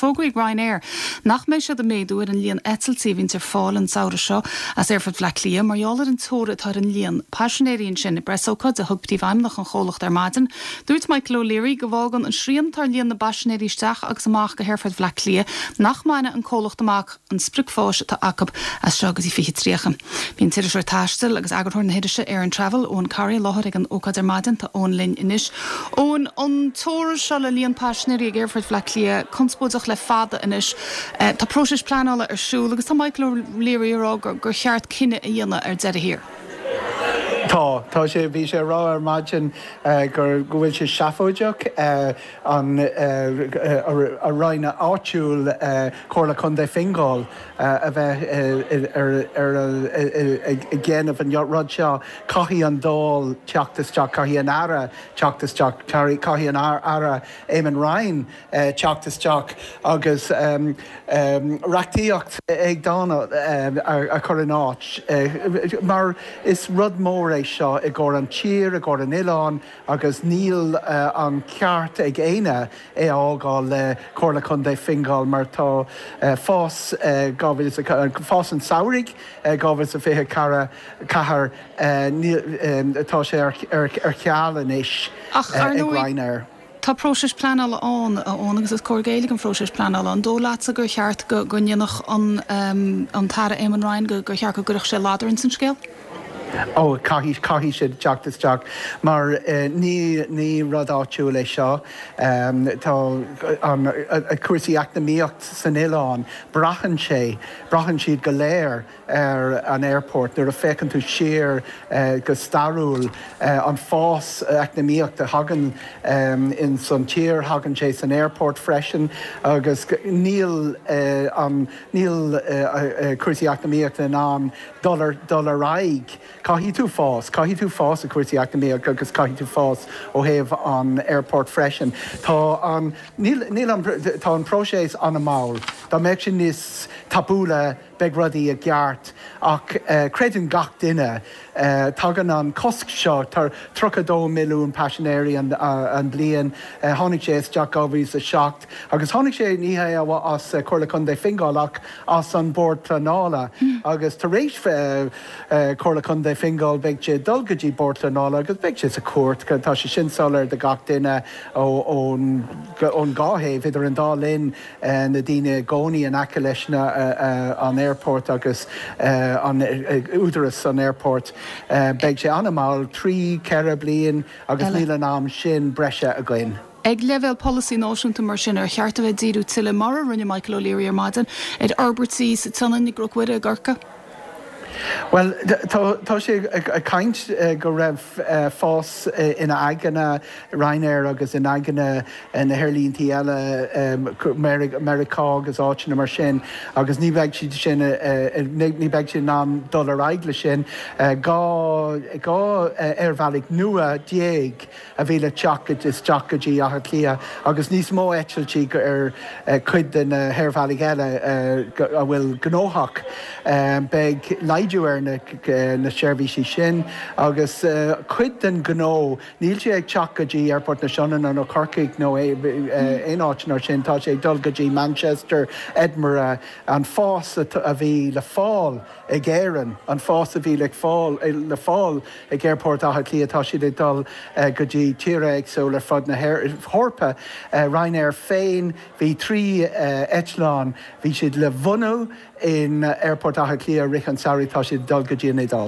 Fógraithe ag Ryanair nach mbeidh siad ag méadú ar an líon eitiltí a bhíonns ar fáil an samhradh seo as Aerfort Bhaile Átha Cliath mar gheall ar an teora atá ar an líon paisinéirí ansin. I bpreasócáid a thug Príomhfheidhmeannach an chomhlachta ar maidin, dúirt Michael O'Leary go bhfágann an srian atá ar líon na bpaisinéirí isteach agus amach go hAerfort Bhaile Átha Cliath nach mbainfidh an comhlacht amach an sprioc fáis atá acu as seo go dtí 2030. Bhí an t-iriseoir taistil agus eagarthóir na hirise Air and Travel, Eoghan Corry, i láthair ag an ócáid ar maidin. Tá Eoghan linn anois. Eoghan, an teora seo le líon paisinéirí ag Aerfort Bhaile Átha Cliath conspóideach le fada anois. Tá próiseas pleanála ar siúl agus tá Michael O'Leary ag rá gur cheart cinneadh a dhéanamh ar deireadh thiar. Tá. Tá sé, bhí sé ag rá ar maidin gur, go bhfuil sé seafóideach an a roinn áitiúil Comhairle Contae Fingal a bheith ar ar ag déanamh an rud seo. Caithfidh an Dáil teacht isteach, caithfidh an Aire teacht isteach, caithfidh an Aire Eamon Ryan teacht isteach agus reachtaíocht éigeandála a chur in áit mar is rud mór é seo i gcomhair an tír, i gcomhair an oileáin agus níl an ceart ag éinne é a fhágáil le Comhairle Contae Fingal mar tá fás fás an tsamhraidh 2024 tá sé ar ceal anois ag Ryanair. Tá próiseas pleanála ann, a Eoin, agus is cóir géilleadh don phróiseas pleanála. An dóigh leatsa gur cheart go ndéanfadh an tAire Eamon Ryan, gur cheart go gcuirfeadh sé ladar ins an scéal? Ó, caithfidh, caithfidh siad teacht isteach mar ní, ní rud áitiúil é seo. Tá an, cúrsaí eacnamaíocht san oileán, braitheann sé, braitheann siad go léir ar an aerport, nuair a féachann tú siar go stairiúil, an fás eacnamaíocht a thagann ins an tír, thagann sé san aerport freisin agus níl an, níl cúrsaí eacnamaíochta in ann dul ar, dul ar aghaidh. Caithfidh tú fás, caithfidh tú fás i cúrsaí eacnamaíochta agus caithfidh tú fás ó thaobh an aerport freisin. Tá an, níl, níl an, tá an próiseas an-mhall. Dá mbeadh sé níos tapúla, beidh rudaí i gceart ach creideann gach duine, tagann an cosc seo, 32 milliún paisinéirí an bliain, tháinig sé isteach 2007 agus tháinig sé ní hé as Comhairle Contae Fingal ach as an Bord Pleanála agus tar éis Comhairle Contae Fingal beidh sé ag dul go dtí Bord Pleanála agus beidh sé sa chúirt, tá sé sin soiléir do gach duine ón dhá thaobh, idir an dá linn. na daoine i gcónaí in aice leis an aerport agus an údaras an aerport. Beidh sé an-mhall, 3, 4 bliain agus níl an am sin breise againn. Ag leibhéal polasaí náisiúnta mar sin, ar cheart a bheith ag díriú tuilleadh, mar a rinne Michael O'Leary ar maidin, ar fhorbairtí sa tSionainn, i gCnoc Mhuire, i gCorcaigh? Bhuel, tá sé ag caint go raibh fás ina aigne, Ryanair agus in aigne na haerlíntí eile, Meiriceá agus áiteanna mar sin, agus ní bheidh siad sin, ní bheidh siad in ann dul ar aghaidh le sin. 12 aerbhealaigh nua a bhí le teacht isteach go dtí Áth Cliath agus níos mó eitiltí ar chuid de na haerbhealaigh eile a bhfuil gnóthach. Beidh laghdú ar na seirbhísí sin agus cuid den ghnó, níl sé ag teacht go dtí Aerfort na Sionainne nó Corcaigh nó aon áit mar sin, tá sé ag dul go dtí Manchester, Edinburgh, an fás a bhí le fáil ag Éirinn, an fás a bhí le fáil ag Aerfort Átha Cliath, tá siad ag dul go dtí tíortha éagsúla ar fud na hEorpa. Ryanair féin, bhí 3 eitleán, bhí siad le bhunú in Aerfort Átha Cliath i rith an tsamhraidh, tá siad ag dul go dtí an Iodáil.